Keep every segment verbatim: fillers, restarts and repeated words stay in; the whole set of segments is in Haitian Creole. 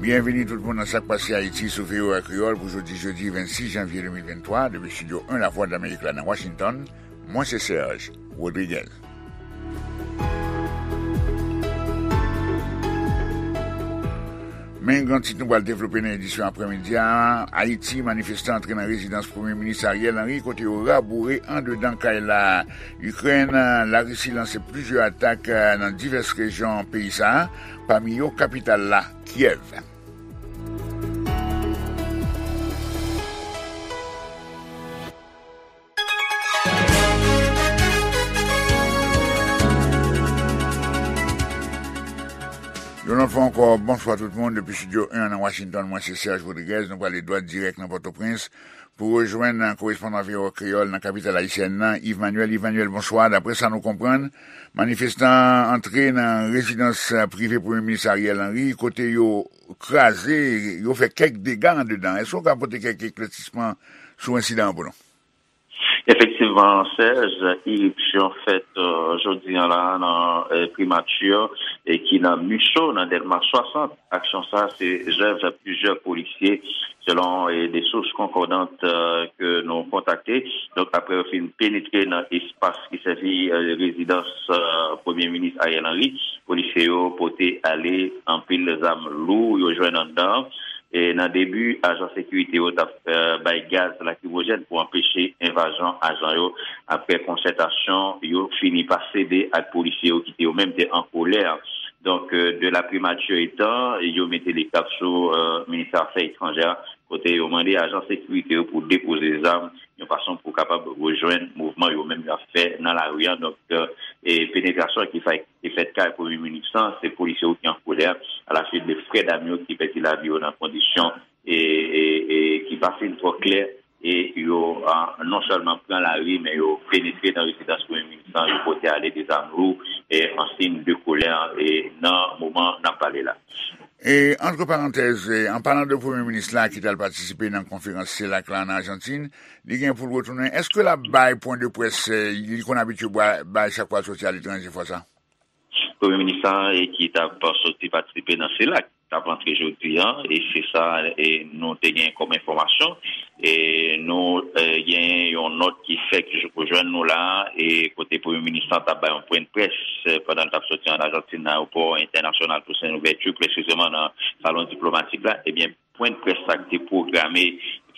Byenvini tout moun nan Sa k Pase Ayiti sou V O A Kreyòl pou jodi jedi vennsis janvye de mil venntwa, depi estidyo en Lavwadlamerik la nan Washington. Mwen se Serge Rodriguez. Men gran tit nou pral devlope nan edisyon aprèmidi a. Ayiti, manifestan antre nan rezidans Premye Minis Ariel Henry kote yo raboure andedan kay la. Ikrèn, Larisi lanse plizyè atak nan divès rejyon peyi sa a, pami yo kapital la, Kyèv. Yon lòt fwa ankò, bonswa tout moun. Depi estidyo en nan Washington, mwen se Serge Rodriguez. Nou prale dwat dirèk nan Pòtoprens pou rejwenn korespondan V O A Kreyòl nan kapital ayisyèn nan, Yves Manuel. Yves Manuel, bonswa. Daprè sa nou konprann, manifestan antre nan rezidans prive Premye Minis Ariel Henry, kote yo kraze, yo fè kèk dega andedan. Èske w ka pote kèk eklèsisman sou ensidan an pou nou? Efektivman, Serge, iripsyon fèt, euh, jodi an la nan, euh, primati, e ki nan Micho, nan Dèlma swasant. Aksyon sa a se zèv plizyè polisye, selon, e, de sous konkòdant, euh, ke nou kontakte. Donk, apre yo fin penetre nan espas ki sèvi, euh, rezidans, euh, Premye Minis Ariel Henry, polisye yo pote ale anpil zam lou yo jwenn anndan. E nan debi, ajan sekirite yo t ap, euh, bay gaz lakrimojèn pou anpeche envazyon ajan yo. Apre konsètasyon, yo fini pa sede ak polisye yo ki te yo menm te an kolè. Donk, euh, de la primati etan, yo mete lekap sou, euh, ministè afè etranjè, kote yo mande ajan sekirite yo pou depoze zam, yon fason pou kapab rejwenn mouvman yo menm y ap fè nan lari a. Donk, euh, e penetrasyon ki fè, ki fèt kay Premye Minis lan, se polisye yo ki an kolè, alaswit de frè dam yo ki pèdi lavi yo nan kondisyon e, e, e ki pa fin twò klè, e yo, a, non sèlman pran lari, men yo penetre nan rezidans Premye Minis lan, yo pote ale de zam lou, e an siy de kolè, e nan moman n ap pale la. E, antre parantèz, e, an palan de Premye Minis la ki t al patisipe nan konferans selak la an Ajantin, li gen pou l retounen. Èske l ap bay pwen de près, e, li konn abitye bay, bay chak fwa l soti aletranje fwa sa? Premye Minis la, e, ki t ap soti patisipe nan selak, t ap antre jodi an, e se sa, e, nou te gen kòm enfòmasyon. E nou, e, gen yon nòt ki fèk jou-, jwenn nou la, e kote Premye Minis la t ap bay yon pwen de près, e, pandan l t ap soti an Ajantin nan ayewopò entènasyonal Toussaint Louverture, presizeman nan salon diplomatik la. Ebyen, pwen de près sa ki te pwograme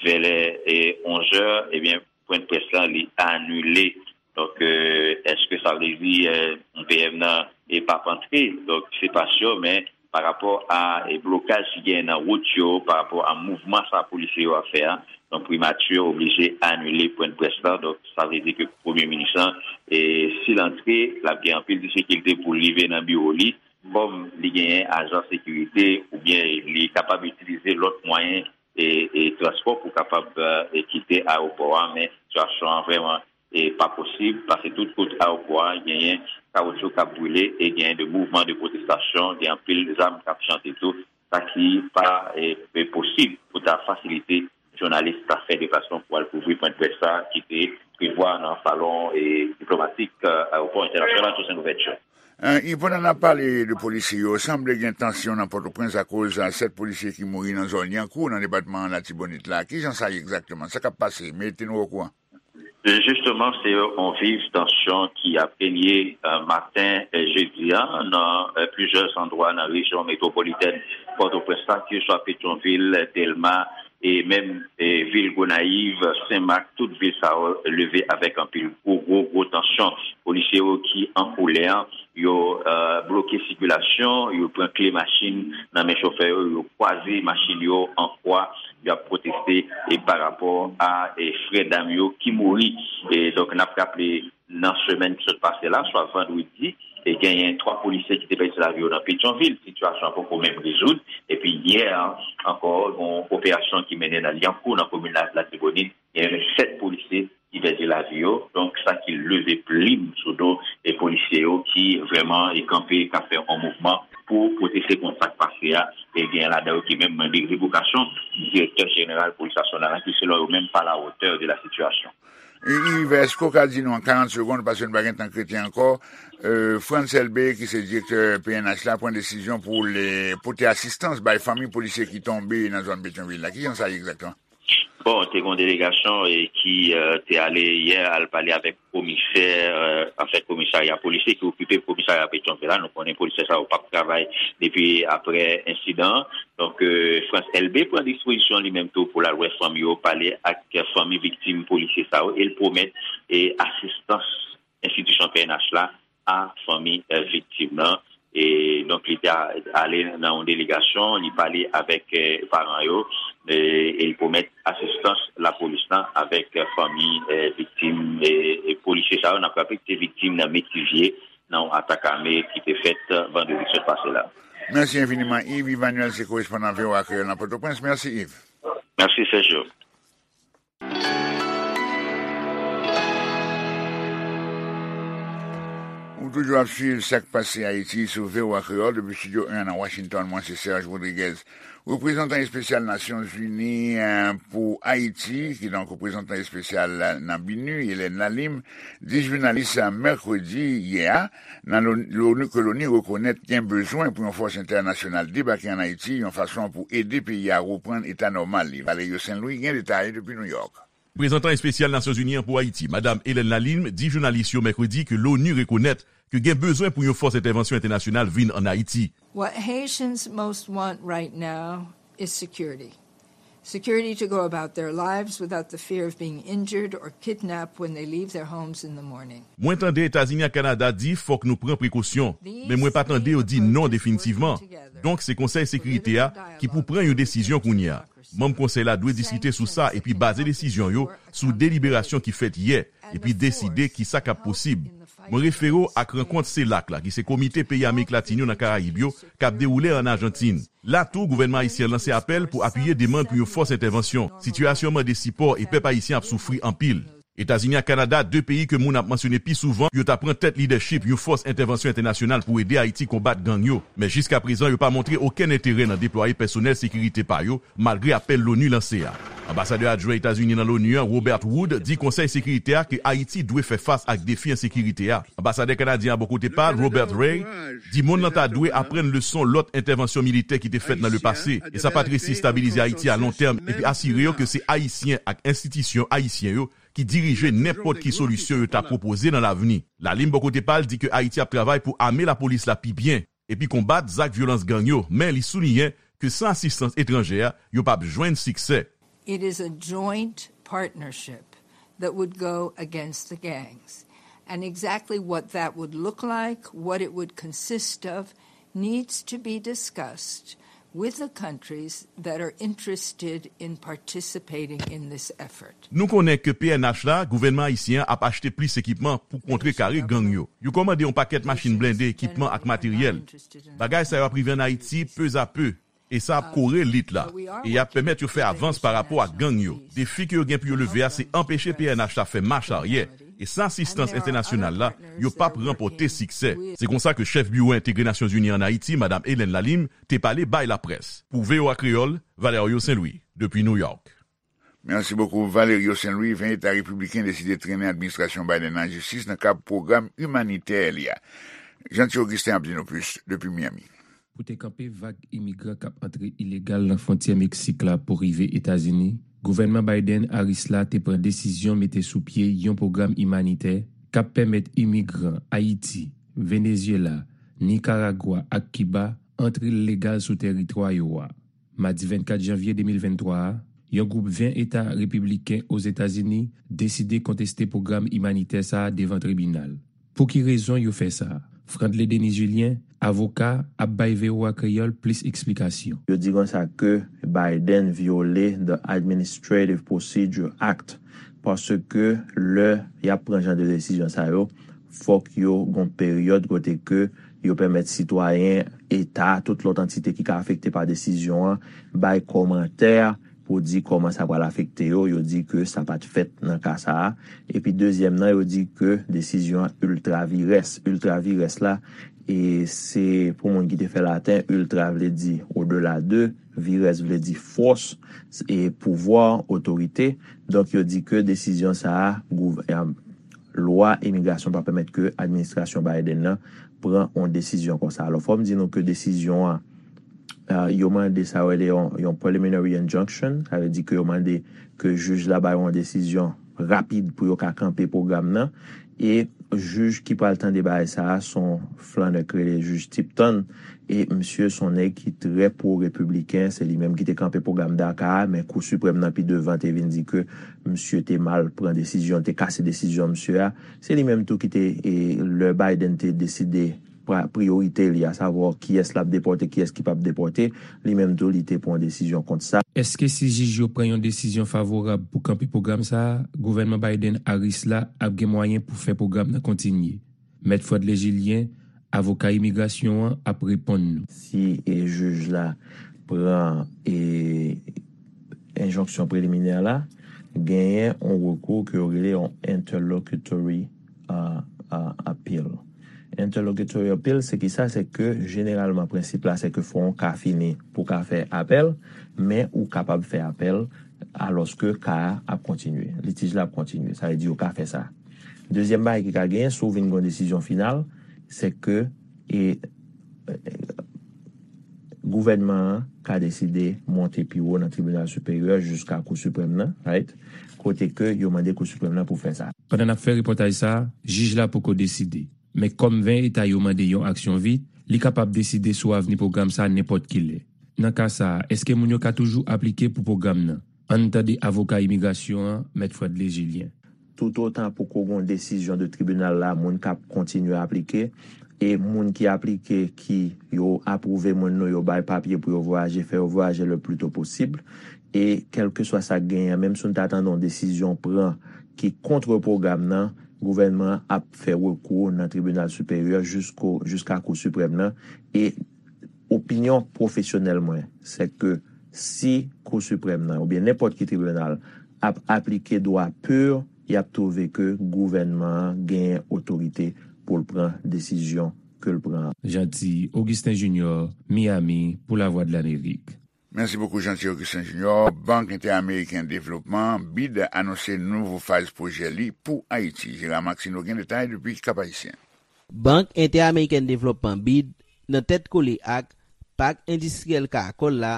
vè lè, e, onz è, ebyen, pwen de près la, li anile. Donk, e, èske sa vle di, e, V M nan, e, p ap antre? Donk, se pa si, men pa rapò a, e, blokaj ki genyen nan wout yo, pa rapò a mouvman sa polisye yo ap fè a, donk, primati oblije anile pwen de près la. Donk, sa vle di ke Premye Minis lan, e, si l antre, l ap gen anpil difikilte pou l rive nan biwo li, kòm li genyen ajan sekirite, oubyen li kapab itilize lòt mwayen e, e transpò pou kapab, e, kite ayewopò a, men sitiyasyon an vrèman, e, pa posib, paske tout kote ayewopò a genyen kawoutchou k ap brile e genyen de mouvman de pwotestasyon, gen anpil zam k ap chante tou, sa ki pa, e, e posib pou ta fasilite jounalis ta fè deplasman pou al kouvri pwen de près sa ki te prevwa nan salon, e, diplomatik, e, ayewopò entènasyonal Toussaint Louverture. E, pandan n ap pale de polisye yo, sanble gen tansyon nan Pòtoprens akoz, e, sèt polisye ki mouri nan zòn Lyankou, nan depatman Latibonit la. Kijan sa ye egzakteman? Sa k ap pase? Mete nou okouran. Jisteman, se yon viv tansyon ki ap renye, e, maten, e, jedi a, nan, e, plizyè andwa nan rejyon metwopolitèn Pòtoprens la, keseswa Petyonvil, Dèlma, e menm, e, vil Gonayiv, Senmak, tout vil sa yo leve avèk anpil gwo, gwo, gwo tansyon. Polisye yo ki an kolè, yo, e, bloke sikilasyon, yo pran kle machin nan men chofè yo, yo kwaze machin yo an kwa, y ap pwoteste, e, pa rapò a, e, frè dam yo ki mouri. E, donk, n ap raple, nan semèn ki sot pase la, swa vandredi, e genyen twa polisye ki te pèdi lavi yo nan Petyonvil. Sitiyasyon an poko menm rezoud. Epi yè ankò, yon operasyon ki mennen nan Lyankou, nan komin la, Latibonit, genyen sèt polisye ki pèdi lavi yo. Donk, sa ki leve plim sou do e polisye yo ki vrèman e kanpe, k ap fè yon mouvman pou pwoteste kont sa k pase a. E genyen ladan yo ki menm mande revokasyon direktè jeneral polis nasyonal la, ki selon yo menm pa la hauteur de la situation. Yves, èske w ka di nou an karant segonn, paske nou pa gen tan k rete ankò, euh, Frantz Elbé, ki se direktè P N H la, pran desizyon pou l pote asistans bay fanmi polisye ki tonbe nan zòn Petyonvil la? Ki jan sa ye egzakteman? Bon, te gen yon delegasyon e ki euh, te ale yè al pale avèk komisè, euh, anfèt komisarya polisye ki okipe komisarya Petyonvil la. Nou konnen polisye sa yo p ap travay depi apre ensidan an. Donk, euh, Frantz Elbé pran dispozisyon li menm tou pou l al wè fanmi yo, pale ak fanmi viktim polisye sa yo, e l pwomèt e asistans enstitisyon P N H la a fanmi euh, viktim nan. E donk, li te a- ale nan yon delegasyon, li pale avèk euh, paran yo, e, e li pwomèt asistans lapolis lan avèk euh, fanmi euh, viktim e, e polisye sa yo. N ap raple ke se viktim nan Metivye, nan yon atak ame ki te fèt vandredi sot pase la. Mèsi enfiniman, Yves. Yves Emmanuel se korespondan V O A Kreyòl nan Pòtoprens. Mèsi, Yves. Mèsi, Sergio. Ou toujou ap swiv sa k pase Ayiti sou V O A Kreyòl depi Estidyo en nan Washington. Mwen se Serge Rodriguez. Reprezantan espesyal Nasyonzini eh, pou Ayiti, kidonk reprezantan espesyal nan BINUH, Hélène Lalim, di jounalis mèkredi yè a, nan Loni, ke Loni rekonèt gen bezwen pou yon fòs entènasyonal debake ann Ayiti yon fason pou ede peyi a reprann eta nòmal li. Valerio Saint Louis gen detay depi Nouyòk. Reprezantan espesyal Nasyonzini an pou Ayiti, Madam Hélène Lalim, di jounalis yo mèkredi ke Loni rekonèt ke gen bezwen pou yon fòs entèvansyon entènasyonal vin ann Ayiti. What Haitians most want right now is security. Security to go about their lives without the fear of being injured or kidnapped when they leave their homes in the morning. Mwen tande Etazini ak Kanada di fòk nou pran prekosyon, men mwen pa tande yo di non definitivman. Donk, se Konsèy Sekirite a ki pou pran yon desizyon kounye a. Manm Konsèy la dwe diskite sou sa epi baze desizyon yo sou deliberasyon ki fèt yè, epi deside kisa k ap posib. Mwen refere w ak rankont CELAC la, ki se Komite Peyi Amerik Latin yo nan Karayib yo, k ap dewoule ann Ajantin. La tou, gouvènman ayisyen an lanse apèl pou apiye demann pou yon fòs entèvansyon. Sitiyasyon an mande sipò e pèp ayisyen ap soufri anpil. Etazini ak Kanada, de peyi ke moun ap mansyone pi souvan, yo ta pran tèt lidèchip yon fòs entèvansyon entènasyonal pou ede Ayiti konbat gang yo. Men jiskaprezan, yo pa montre okenn enterè nan deplwaye pèsonèl sekirite pa yo, malgre apèl Loni lanse a. Anbasadè adjwen Etazini nan Loni an, Robert Wood, di Konsèy Sekirite a ke Ayiti dwe fè fas ak defi ensekirite a. Anbasadè kanadyen an bò kote pa l, Robert Ray, di monn nan ta dwe aprann leson lòt entèvansyon militè ki te fèt nan lepase, e sa pa t resi estabilize Ayiti a lon tèm, epi asire yo ke se Ayisyen ak enstitisyon ayisyen yo ki dirije nenpòt ki solisyon yo ta pwopoze nan lavni. Lalim bò kote pa l di ke Ayiti ap travay pou ame lapolis la pi byen, epi konbat zak vyolans gang yo, men li souliyen ke san asistans etranjè a, yo p ap jwenn siksè. It is a joint partnership that would go against the gangs. And exactly what that would look like, what it would consist of, needs to be discussed with the countries that are interested in participating in this effort. Nou konnen ke P N H la, gouvènman ayisyen an ap achte plis ekipman pou kontrekare gang yo. Yo kòmande yon pakèt machin blende, ekipman ak materyèl. Bagay sa yo ap rive ann Ayiti pezapè, e sa ap kore lit la, e y ap pèmèt yo fè avans pa rapò ak gang yo. Defi ke yo gen pou yo leve a, se anpeche P N H la fè mach aryè, e san asistans entènasyonal la, yo p ap ranpòte siksè. Se konsa ke chèf Biwo Entegre Nasyonzini ann Ayiti, Madam Hélène Lalim, te pale bay laprès. Pou V O A Kreyòl, Valerio Saint Louis, depi New York. Merci beaucoup, Valerio Saint Louis. Ven eta repibliken deside trennen administrasyon Biden an an jistis nan kad pwogram imanitè li a. Jeanty Augustin ap di nou plis depi Miami. Pou te kanpe vag imigran k ap antre ilegal nan fwontyè Meksik la pou rive Etazini, gouvènman Biden-Harris la te pran desizyon mete sou pye yon pwogram imanitè k ap pèmèt imigran Ayiti, Venezyela, Nikaragwa ak Kiba antre legal sou tèritwa yo a. Madi vennkat janvye de mil venntwa a, yon gwoup ven eta repibliken Ozetazini deside konteste pwogram imanitè sa a devan tribinal. Pou ki rezon yo fè sa? Frantley Denis Julien, avoka, ap bay V O A Kreyòl plis eksplikasyon. Yo di konsa ke Biden vyole the Administrative Procedure Act, paske lè y ap pran jan de desizyon sa yo, fòk yo gon peryòd kote ke yo pèmèt sitwayen, eta, tout lòt antite ki ka afekte pa desizyon an, bay kòmantè pou di kòman sa pral afekte yo. Yo di ke sa pa t fèt nan ka sa a. Epi dezyèm nan, yo di ke desizyon an ultra vires. Ultra vires la, e se pou moun ki te fè laten, ultra vle di au-delà de, Virès vle di fòs, e pouvwa, otorite. Donk, yo di ke desizyon sa a, gouv-, e, lwa imigrasyon pa pèmèt ke administrasyon Biden nan pran yon desizyon konsa. Alò, fò m di nou ke desizyon an, e, yo mande sa yo rele yon, yon preliminary injunction, sa vle di ke yo mande ke jij la bay yon desizyon rapid pou yo ka kanpe pwogram nan. E jij ki pral tande bagay sa a, se yon flannè k rele jij Tipton. E misye se yon nèg ki trè pwo-repibliken. Se li menm ki te kanpe pwogram DACA a, men Kou Siprèm nan pi devan te vin di ke misye te mal pran desizyon, te kase desizyon misye a. Se li menm tou ki te, e, lè Biden te deside pra-, priyorite li, asavwa kiyès l ap depòte, kiyès ki p ap depòte, li menm tou li te pran desizyon kont sa. Èske si jij yo pran yon desizyon favorab pou kanpe pwogram sa a, gouvènman Biden-Harris la ap gen mwayen pou fè pwogram nan kontinye? Mèt Fred Legilien, avoka imigrasyon an, ap reponn nou. Si, e, jij la pran, e, enjonksyon preliminè la, genyen yon rekou ke yo rele yon interlocutory, a, a, appeal. Interlocutory appeal, se ki sa? Se ke jeneralman prensip la, se ke fò yon ka fini pou ka fè apèl, men ou kapab fè apèl alòske ka a ap kontinye, litij la ap kontinye. Sa vle di yo ka fè sa. Dezyèm bagay ki ka genyen, si w vin gen yon desizyon final, se ke, e, gouvènman an ka deside monte pi wo nan tribinal siperyè jiska Kou Siprèm nan, right? Kote ke yo mande Kou Siprèm nan pou fè sa. Pandan n ap fè repòtaj sa a, jij la poko deside. Men kòm ven eta yo mande yon aksyon vit, li kapab deside sou avni pwogram sa a nenpòt ki lè. Nan ka sa a, èske moun yo ka toujou aplike pou pwogram nan? Ann tande avoka imigrasyon an, Mèt Fred Legilien. Toutotan poko gen yon desizyon de tribinal la, moun k ap kontinye aplike, e moun ki aplike, ki yo apwouve moun nou, yo bay papye pou yo vwayaje, fè yo vwayaje le pli to posib. E kèlkeswa sa k genyen an, menm si nou ta tande yon desizyon pran ki kont pwogram nan, gouvènman an ap fè rekou nan tribinal siperyè jisko, jiska Kou Siprèm nan. E opinyon pwofesyonèl mwen, se ke si Kou Siprèm nan, oubyen nenpòt ki tribinal, ap aplike dwa pur, y ap twouve ke gouvènman an genyen otorite pou l pran desizyon ke l pran an. Jeanty Augustin Junior, Miami, pou Lavwadlamerik. Mèsi bokou, Jeanty Augustin Junior. Bank Entèameriken Devlopman, bid, anonse nouvo faz pwojè li pou Ayiti. Gérard Maxineau gen detay depi Kap Ayisyen. Bank Entèameriken Devlopman, bid, nan tèt kole ak Pak Endistriyèl Karakòl la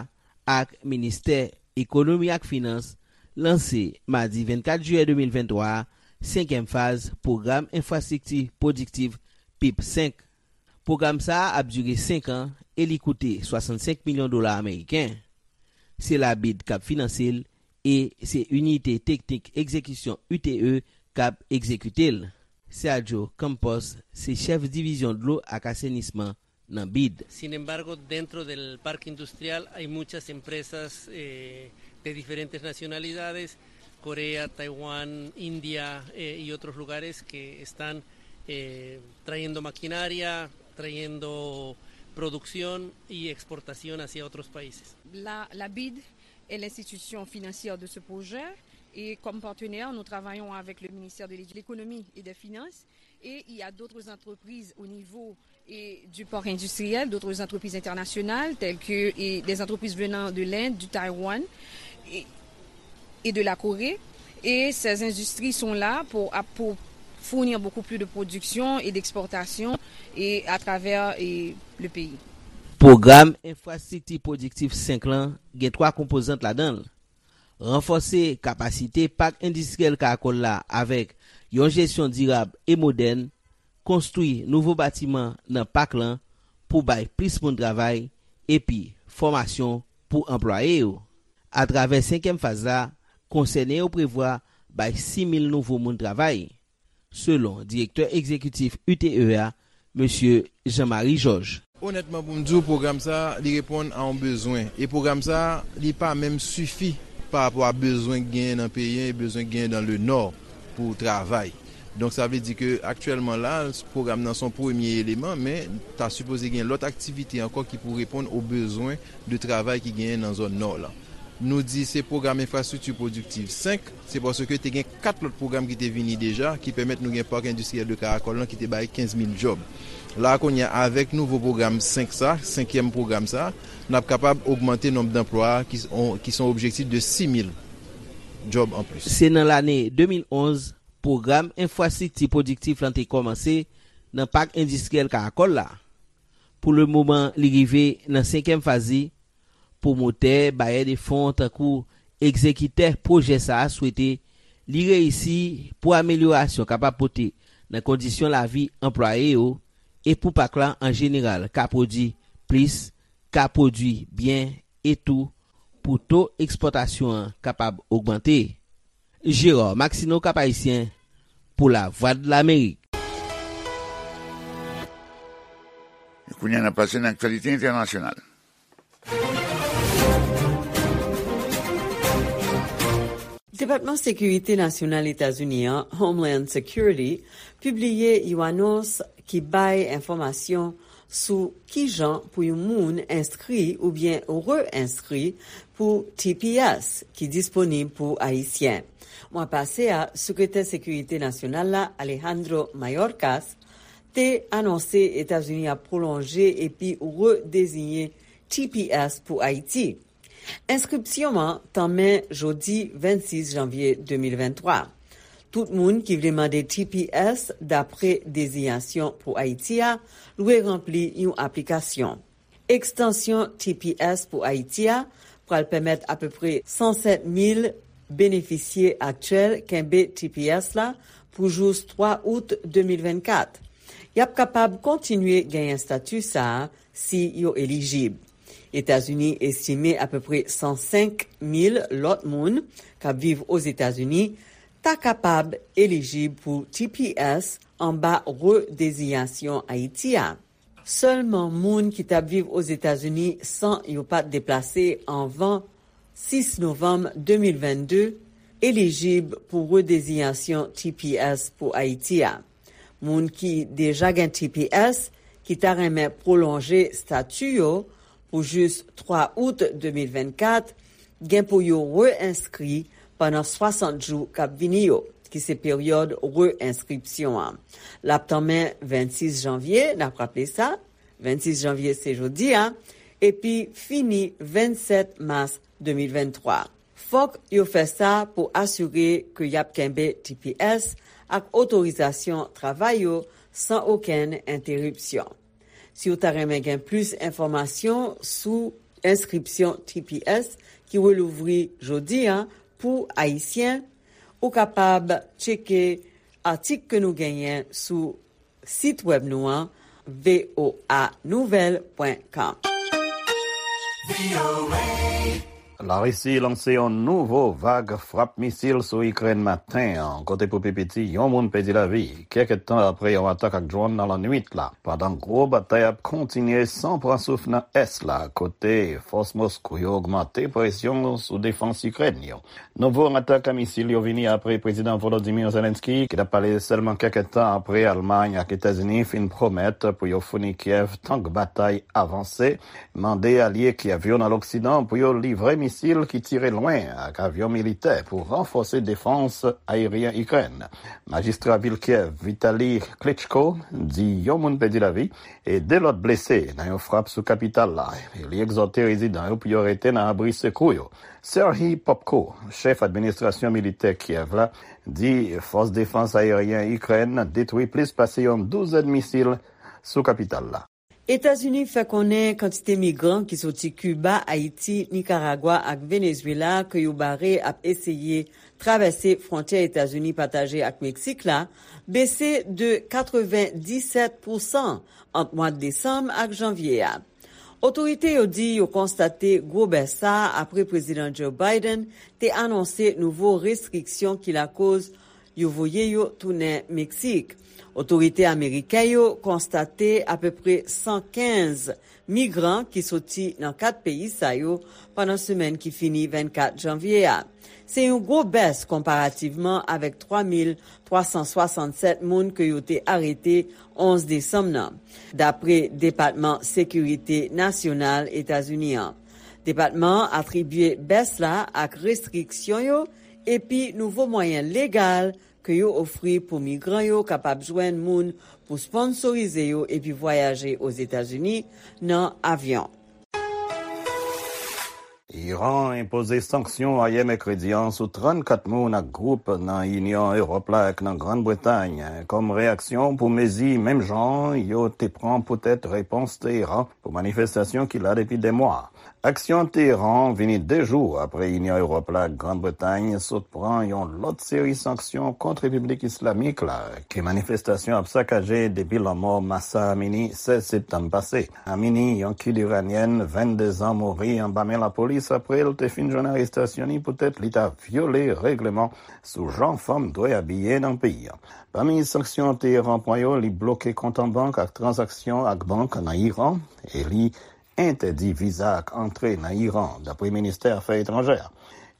ak Ministè Ekonomi ak Finans, lanse madi vennkat jiyè de mil venntwa a senkyèm faz Pwogram Enfrastrikti Pwodiktif, pip senk. Pwogram sa a ap dire senk an e li koute swasannsenk milyon dola ameriken. Se la bid k ap finanse l e se Inite Teknik Egzekisyon, U T E, k ap egzekite l. Sergio Campos se chèf divizyon dlo ak asenisman nan bid. Sin embargo, dentro del parque industrial hay muchas empresas, eh, de diferentes nacionalidades, Corea, Taiwán, India, eh, y otros lugares que están, eh, trayendo maquinaria, trayendo producción y exportación hacia otros países. La, la bid est l'institution financière de ce projet et comme partenaire, nous travaillons avec le ministère de l'Édu-, l'Économie et des Finances et il y a d'autres entreprises au niveau et du parc industriel, d'autres entreprises internationales telles que et des entreprises venant de l'Inde, du Taïwan et, et de la Corée. Et ces industries sont là pour, pour fournir beaucoup plus de production et d'exportation et à travers et le pays. Pwogram Enfrastrikti Pwodiktif senk lan gen twa konpozant ladan l. Ranfòse kapasite Pak Endistriyèl Karakòl la avèk yon jesyon dirab e modèn, konstwi nouvo batiman nan pak lan pou bay plis moun travay, epi fòmasyon pou anplwaye yo. Atravè senkyèm faz la, konsène yo prevwa bay sis mil nouvo moun travay, selon direktè egzekitif U T E a, mesye Jean Marie Georges. Onètman, pou m di w, pwogram sa a, li reponn a yon bezwen. E pwogram sa a, li pa menm sifi pa rapò a bezwen k genyen nan peyi an e bezwen k genyen dans le Nord pou travay. Donk, sa vle di ke aktyèlman la, pwogram nan se yon premye eleman, men ta sipoze gen lòt aktivite ankò ki pou reponn o bezwen de travay ki genyen nan zòn Nò lan. Nou di se pwogram enfrastrikti pwodiktiv senk, se paske te gen kat lòt pwogram ki te vini deja, ki pèmèt nou gen pak endistriyèl de Karakòl lan ki te bay kenz mil djòb. La a kounye a, avèk nouvo pwogram senk sa, senkyèm pwogram sa, n ap kapab ogmante nonb danplwa a, ki s-, on, ki se yon objektif de sis mil djòb anplis. Se nan lane de mil onz, pwogram enfrastrikti pwodiktif lan te kòmanse nan pak endistriyèl Karakòl la. Pou lemoman, li rive nan senkyèm faz li. Pwomotè, bayè de fon tankou egzekitè pwojè sa a swete li reyisi pou amelyorasyon kapab pote nan kondisyon lavi anplwaye yo e pou pak la an jeneral ka pwodui plis, ka pwodui byen e tou pou to ekspòtasyon an kapab ogmante. Gérard Maxineau, Cap Haïtien, pou Lavwadlamerik. E kounye a, n ap pase nan aktyalite entènasyonal. Depatman Sekirite Nasyonal Etazini an, Homeland Security, pibliye yon anons ki bay enfòmasyon sou kijan pou yon moun enskri oubyen re-enskri pou T P S ki disponib pou Ayisyen. Mwa pase a, Sekretè Sekirite Nasyonal la, Alejandro Mayorkas, te anonse Etazini ap pwolonje epi redeziyen T P S pou Ayiti. Enskripsyon an tanmen jodi vennsis janvye de mil venntwa. Tout moun ki vle mande T P S dapre dezinyasyon pou Ayiti a lwe ranpli yon aplikasyon. Ekstansyon T P S pou Ayiti a pral pèmèt apeprè san sèt mil benefisye aktyèl kenbe T P S la pou jous twa out de mil vennkat. Y ap kapab kontinye genyen estati sa a si yo elijib. Etazini estime apeprè san senk mil lòt moun k ap viv Ozetazini ta kapab elijib pou T P S anba redezinyasyon Ayiti a. Sèlman moun ki t ap viv Ozetazini san yo pa t deplase anvan sis novanm de mil vennde elijib pou redezinyasyon T P S pou Ayiti a. Moun ki deja gen T P S ki ta renmen pwolonje estati yo pou jis twa out de mil vennkat gen pou yo re-enskri pandan swasant jou k ap vini yo, ki se peryòd re-enskripsyon an. L ap tanmen vennsis janvye, n ap raple sa, vennsis janvye se jodi a, epi fini vennsèt mas de mil venntwa. Fòk yo fè sa pou asire ke y ap kenbe T P S ak otorizasyon travay yo san okenn enteripsyon. Si w ta renmen gen plis enfòmasyon sou enskripsyon T P S ki relouvri jodi a pou Ayisyen, ou kapab tcheke atik ke nou genyen sou sit wèb nou an, V O A nouvèl pwen com. Larisi lanse yon nouvo vag frap misil sou Ikrèn maten an, kote pou pi piti yon moun pèdi lavi, kèk tan apre yon atak ak dwòn nan lannwit la, pandan gwo batay ap kontinye san pran souf nan ès la, kote fòs Moskou yo ogmante presyon sou defans Ikrèn yo. Nouvo atak a misil yo vini apre Prezidan Volodymyr Zelensky, ki t ap pale sèlman kèk tan apre Almay ak Etazini fin pwomèt pou yo founi Kyèv tank batay avanse, mande alye Kyèv yo nan Loksidan pou yo livre misil ki tire lwen ak avyon militè pou ranfòse defans ayeryen Ikrèn. Majistra vil Kyèv, Vitali Klitschko, di yon moun pèdi lavi e de lòt blese nan yon frap sou kapital la. Li egzòte rezidan yo pou yo rete nan abri sekou yo. Serhiy Popko, chèf administrasyon militè Kyèv la, di fòs defans ayeryen Ikrèn detwi plis pase yon douzèn misil sou kapital la. Etazini fè konnen kantite migran ki soti Kiba, Ayiti, Nikaragwa ak Venezwela ke yo bare ap eseye travèse fwontyè Etazini pataje ak Meksik la bese de katrevenndisèt pousan ant mwa desanm ak janvye a. Otorite yo di yo konstate gwo bès sa a apre Prezidan Joe Biden te anonse nouvo restriksyon ki lakoz yo voye yo tounen Meksik. Otorite ameriken yo konstate apeprè san kenz migran ki soti nan kat peyi sa yo pandan semèn ki fini vennkat janvye a. Se yon gwo bès konparativman avèk twa mil twa san swasannsèt moun ke yo te arete onz desanm nan, dapre Depatman Sekirite Nasyonal Etazini an. Depatman an atribye bès la ak restriksyon yo epi nouvo mwayen legal ke yo ofri pou migran yo kapab jwenn moun pou sponsorize yo epi vwayaje Ozetazini nan avyon. Iran enpoze sanksyon ayè mèkredi an sou trannkat moun ak gwoup nan Inyon Ewòp la ak nan Grann Bretay kòm reyaksyon pou mezi menm jan yo te pran poutèt repons Teheran pou manifestasyon ki la depi dè mwa. Aksyon Teheran vini de jou apre Inyon Ewòp la ak Grann Bretay sot pran yon lòt seri sanksyon kont Repiblik Islamik la ke manifestasyon ap sakaje depi lanmò Mahsa Amini sèz septanm pase. Amini, yon kid iranyèn vennde zan, mouri anba men lapolis apre l te fin jwenn arestasyon li poutèt li ta vyole règleman sou jan fanm dwe abiye nan peyi a. Pami sanksyon Teheran pran yo, li bloke kont an bank ak tranzaksyon ak bank nan Iran e li entèdi viza ak antre nan Iran, dapre ministè afè etranjè a.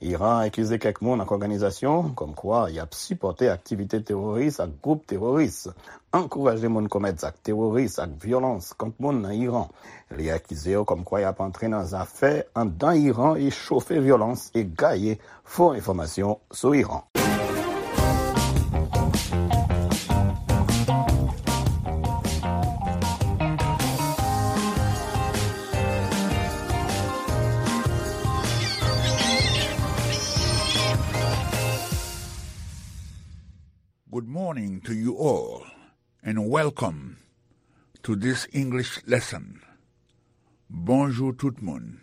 Iran akize kèk moun ak òganizasyon kòmkwa y ap sipòte aktivite teworis ak gwoup teworis, ankouraje moun komèt zak teworis ak vyolans kont moun nan Iran. Li akize yo kòmkwa y ap antre nan zafè anndan Iran e chofe vyolans e gaye fo enfòmasyon sou Iran. Good morning to you all, and welcome to this English lesson. Bonjou tout moun,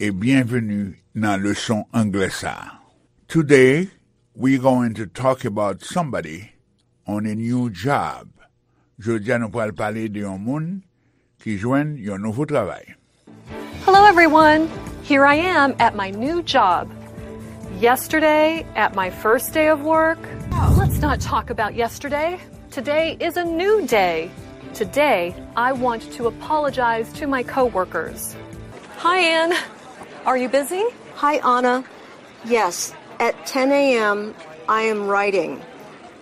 e byenveni nan leson anglè sa a. Today, we're going to talk about somebody on a new job. Jodi a nou pral pale de yon moun ki jwenn yon nouvo travay. Hello, everyone. Here I am at my new job. Yesterday, at my first day of work. Let's not talk about yesterday. Today is a new day. Today, I want to apologize to my coworkers. Hi, Anne. Are you busy? Hi, Anna. Yes, at ten a.m., I am writing.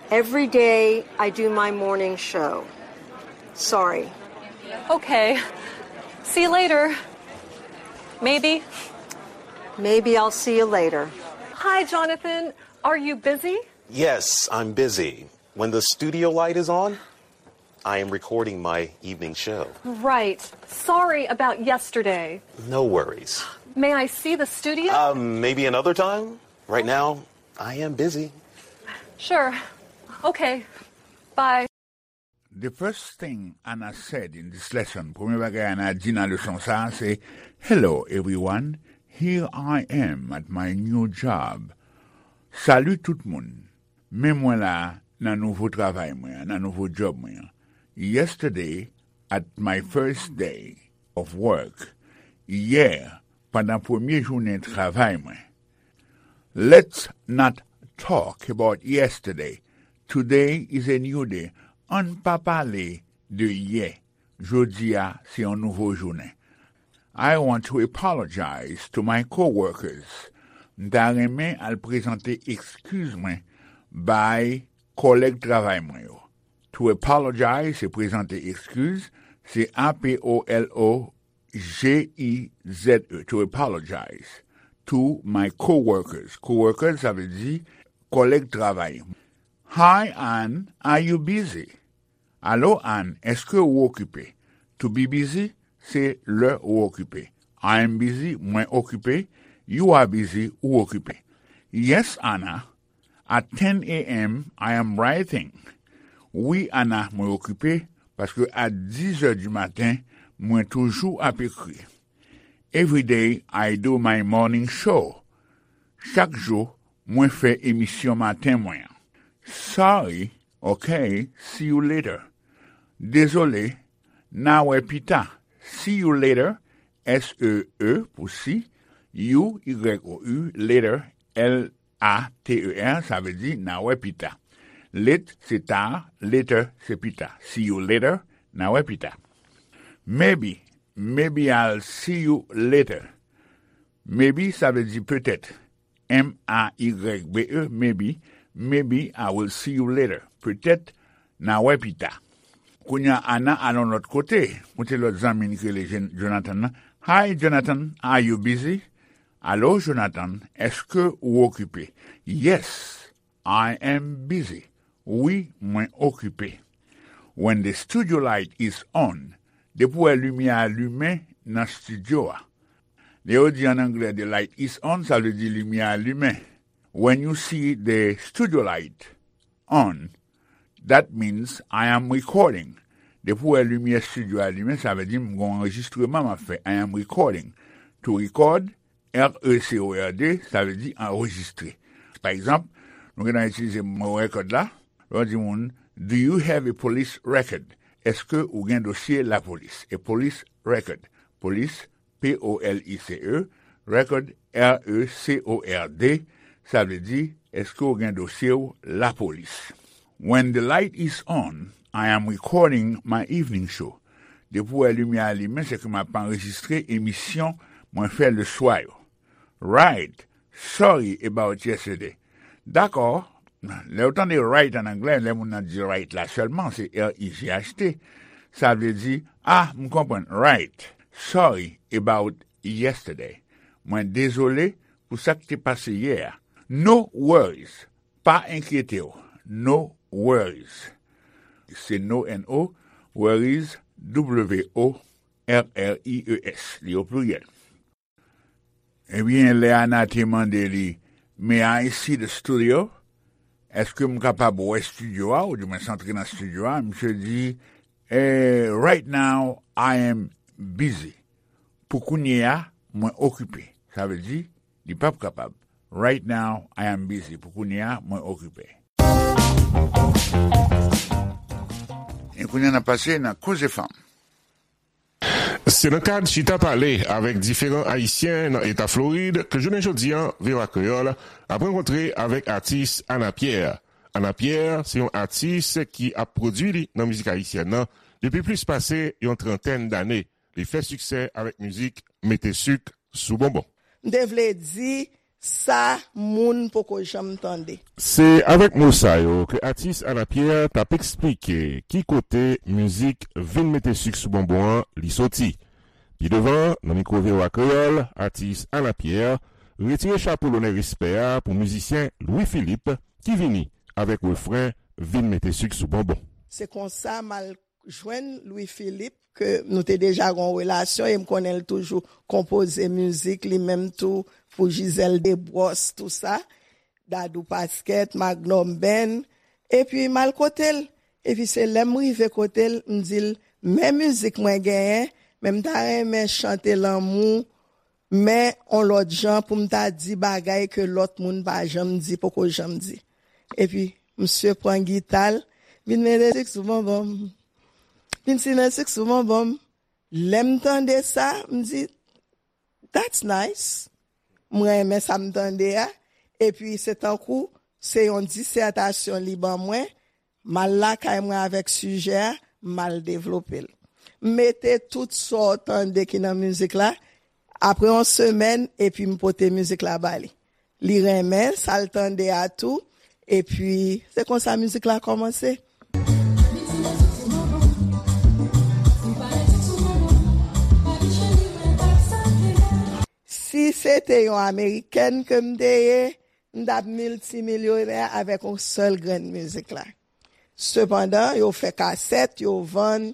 Every day, I do my morning show. Sorry. Okay. See you later. Maybe. Maybe I'll see you later. Hi, Jonathan. Are you busy? Yes, I'm busy. When the studio light is on, I am recording my evening show. Right. Sorry about yesterday. No worries. May I see the studio? Um, maybe another time. Right now, I am busy. Sure. Okay. Bye. The first thing Anna said in this lesson, premye bagay Anna di nan leson sa a se, Hello everyone, here I am at my new job. Salut tout moun, men mwen la nan nouvo travay mwen an, nan nouvo djòb mwen an. Yesterday, at my first day of work, yè, pandan premye jounen travay mwen. Let's not talk about yesterday. Today is a new day. Ann pa pale de yè. Jodi a se yon nouvo jounen. I want to apologize to my coworkers. M ta renmen al prezante ekskiz mwen bay kòlèg travay mwen yo. To apologize se prezante ekskiz, se A P O L O G I Z E, to apologize to my coworkers. Coworkers, sa vle di kòlèg travay. Hi, Anne, are you busy? Alo, Anne, èske ou okipe? To be busy, se lè ou okipe. I am busy, mwen okipe. You are busy, ou okipe. Yes, Anna, at ten a.m. I am writing. Wi, Anna, mwen okipe, paske a dis è di maten, mwen toujou ap ekri. Every day I do my morning show. Chak jou, mwen fè emisyon maten mwen an. Sorry, okay, see you later. Dezole, n a wè pita. See you later, S E E pou see, U, Y O U, later, L A T E R, sa vle di n a wè pita. Late se ta, later se pita. See you later, n a wè pita. Maybe, maybe I'll see you later. Maybe sa vle di petèt. M A Y B E, maybe, maybe I will see you later. Petèt, n a wè pita. Kounye a, Anna al yon lòt kote, kote lòt zanmi n ki rele Jen- Jonathan nan, Hi, Jonathan, are you busy? Alo, Jonathan, èske ou okipe? Yes, I am busy. Wi, mwen okipe. When the studio light is on, depi w wè limyè a limen nan estidyo a. Lè yo di an anglè, "The light is on," sa vle di limyè a limen. When you see the studio light on, that means I am recording. Depi w wè limyè estidyo a limen, sa vle di m gen yon anrejistreman m ap fè. I am recording. To record, R E C O R D, sa vle di anrejistre. Pa egzanp, nou gentan itilize mo record la. Lè w di moun, "Do you have a police record?" Èske ou gen dosye lapolis? A police record. Police, P O L I C E, record, R E C O R D, sa vle di, èske ou gen dosye w lapolis? When the light is on, I am recording my evening show. Depi w wè limyè a limen, se ke m ap anrejistre emisyon mwen fè leswa yo. Right. Sorry about yesterday. Dakò. Lè w tande right an anglè, lè moun nan di right la sèlman, se R I G H T. Sa vle di, ah, m konprann. Right. Sorry about yesterday. Mwen dezole pou sa k te pase yè a. No worries. Pa enkyete w. No worries. Se no, N O, worries, W O R R I E S. Li o pliryèl. Ebyen, lè Ana te mande li, "May I see the studio?" Èske m kapab wè estidyo a, oudimwens antre nan estidyo a? Misye di, eh, "Right now, I am busy." Pou kounye a, mwen okipe. Sa vle di, li p ap kapab. "Right now, I am busy." Pou kounye a, mwen okipe. E kounye a, n ap pase nan Koze Fanm. Se nan kad chita pale avèk diferan Ayisyen nan eta Florid ke jounen jodi a, V O A Kreyòl ap rankontre avèk atis Ana Pierre. Ana Pierre se yon atis ki ap pwodui li nan mizik ayisyèn nan depi plis pase yon trantèn dane. Li fè siksè avèk mizik Mete sik sou bonbon. M te vle di sa moun poko janm tande. Se avèk mo sa yo ke atis Ana Pierre t ap eksplike ki kote mizik Vin mete sik sou bonbon an li soti. Pi devan, nan mikwo V O A Kreyòl, atis Ana Pierre retire chapo lonè respè a pou mizisyen Louis Philippe ki vini avèk refren Vin mete sik sou bonbon. Se konsa m al jwenn Louis Philippe, ke nou te deja gen yon relasyon, e m konnen l toujou konpoze mizik, li menm tou, pou Gisèle Desbrosses, tou sa, Dadou Pasquet, Magnum Band, epi m al kote l. Epi se lè m rive kote l, m di l, "Men mizik mwen genyen, men m ta renmen chante lanmou, men on lòt jan pou m ta di bagay ke lòt moun pa janm di, poko janm di." Epi, misye pran gita l, vin mete sik sou bonbon m. Vin simen sik sou bonbon m. Lè m tande sa, m di, "That's nice." M renmen sa m tande a. Epi, se tankou, se yon disètasyon li ban mwen. M al lakay mwen avèk sijè a, m al devlope l. M mete tout sa w tande ki nan mizik la, apre yon semèn, epi m pote mizik la ba li. Li renmen sa l tande a tou, epi se konsa mizik la kòmanse. Si se te yon amerikèn ke m te ye, m t ap miltimilyonè avèk yon sèl grenn mizik la. Sepandan, yo fè kasèt, yo vann,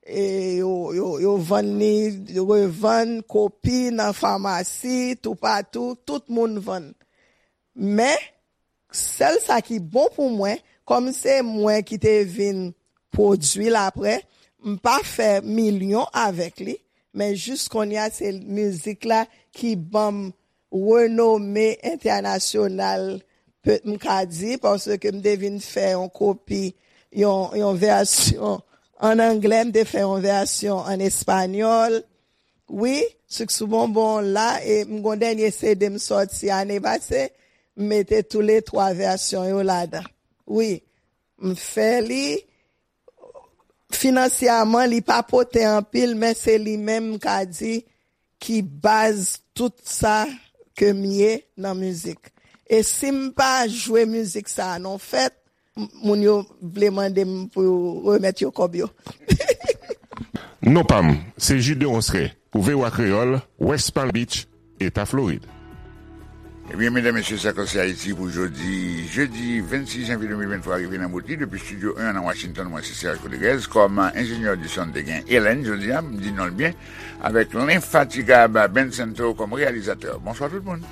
e yo, yo, yo vann li, yo revann kopi nan famasi, toupatou, tout moun vann. Men, sèl sa ki bon pou mwen, kòm se mwen ki te vin pwodui l apre, m pa fè milyon avèk li, men jis kounye a se mizik la ki ban m renome entènasyonal, pe-, m ka di, paske m te vin fè yon kopi, yon, yon vèsyon ann anglè, m te fè yon vèsyon ann espanyòl. Wi, Sik sou Bonbon la, e m gon dènye C D m sòti ane pase, m mete toulètwa vèsyon yo ladan. Wi, m fè li, finansyèman, li pa pote anpil, men se li menm m ka di ki baz tout sa ke m ye nan mizik. E si m pa jwe mizik sa a nan fèt, m-, moun yo vle mande m pou yo remèt yo kòb yo. Non pa m, se Jude Deronceray pou V O A Kreyòl, West Palm Beach, Eta Florid. Ebyen, medam, mesye, sa k se Ayiti pou jodi, jedi vennsis janvye de mil venntwa, rive nan bout li depi Estidyo en an nan Washington. Mwen se Serge Rodriguez. Kòm enjenyè di son, te gen Ellen, jodi a, m di non l byen, avèk lenfatigab Ben Santo kòm reyalizatè. Bonswa tout moun.